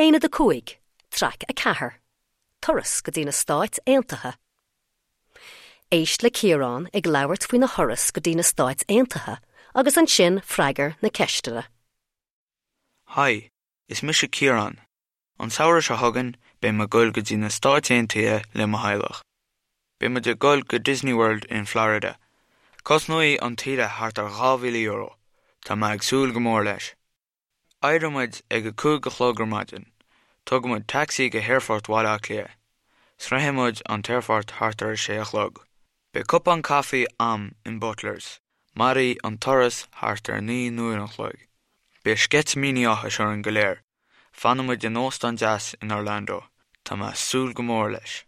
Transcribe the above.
Aonad 5, Traic 4, Turas go dtí na Stáit Aontaithe. Éist le Ciarán ag labhairt faoina thuras go dtí na Stáit Aontaithe agus ansin freagair na ceisteanna. Haigh, is mise Ciarán. An samhradh seo chugainn, beidh mé ag goil go dtí na Stáit Aontaithe le mo theaghlach. Beidh muid ag goil go Disney World in Florida. Cosnóidh an tsaoire thart ar €2,000. Tá mé ag súil go mór leis. Éireoidh muid ag a 5 a chlog ar maidin. Tógfaidh muid tacsaí go hAerfort Bhaile Átha Cliath. Sroichfidh muid an t-aerfort thart ar a sé a chlog. Beidh cupán caife a'm in Butlers. Mairfidh an turas thart ar 9 n-uair an chloig. Beidh sceitimíní áthais orainn go léir. Fanfaidh muid in óstán deas in Orlando. Tá mé ag súil go mór leis.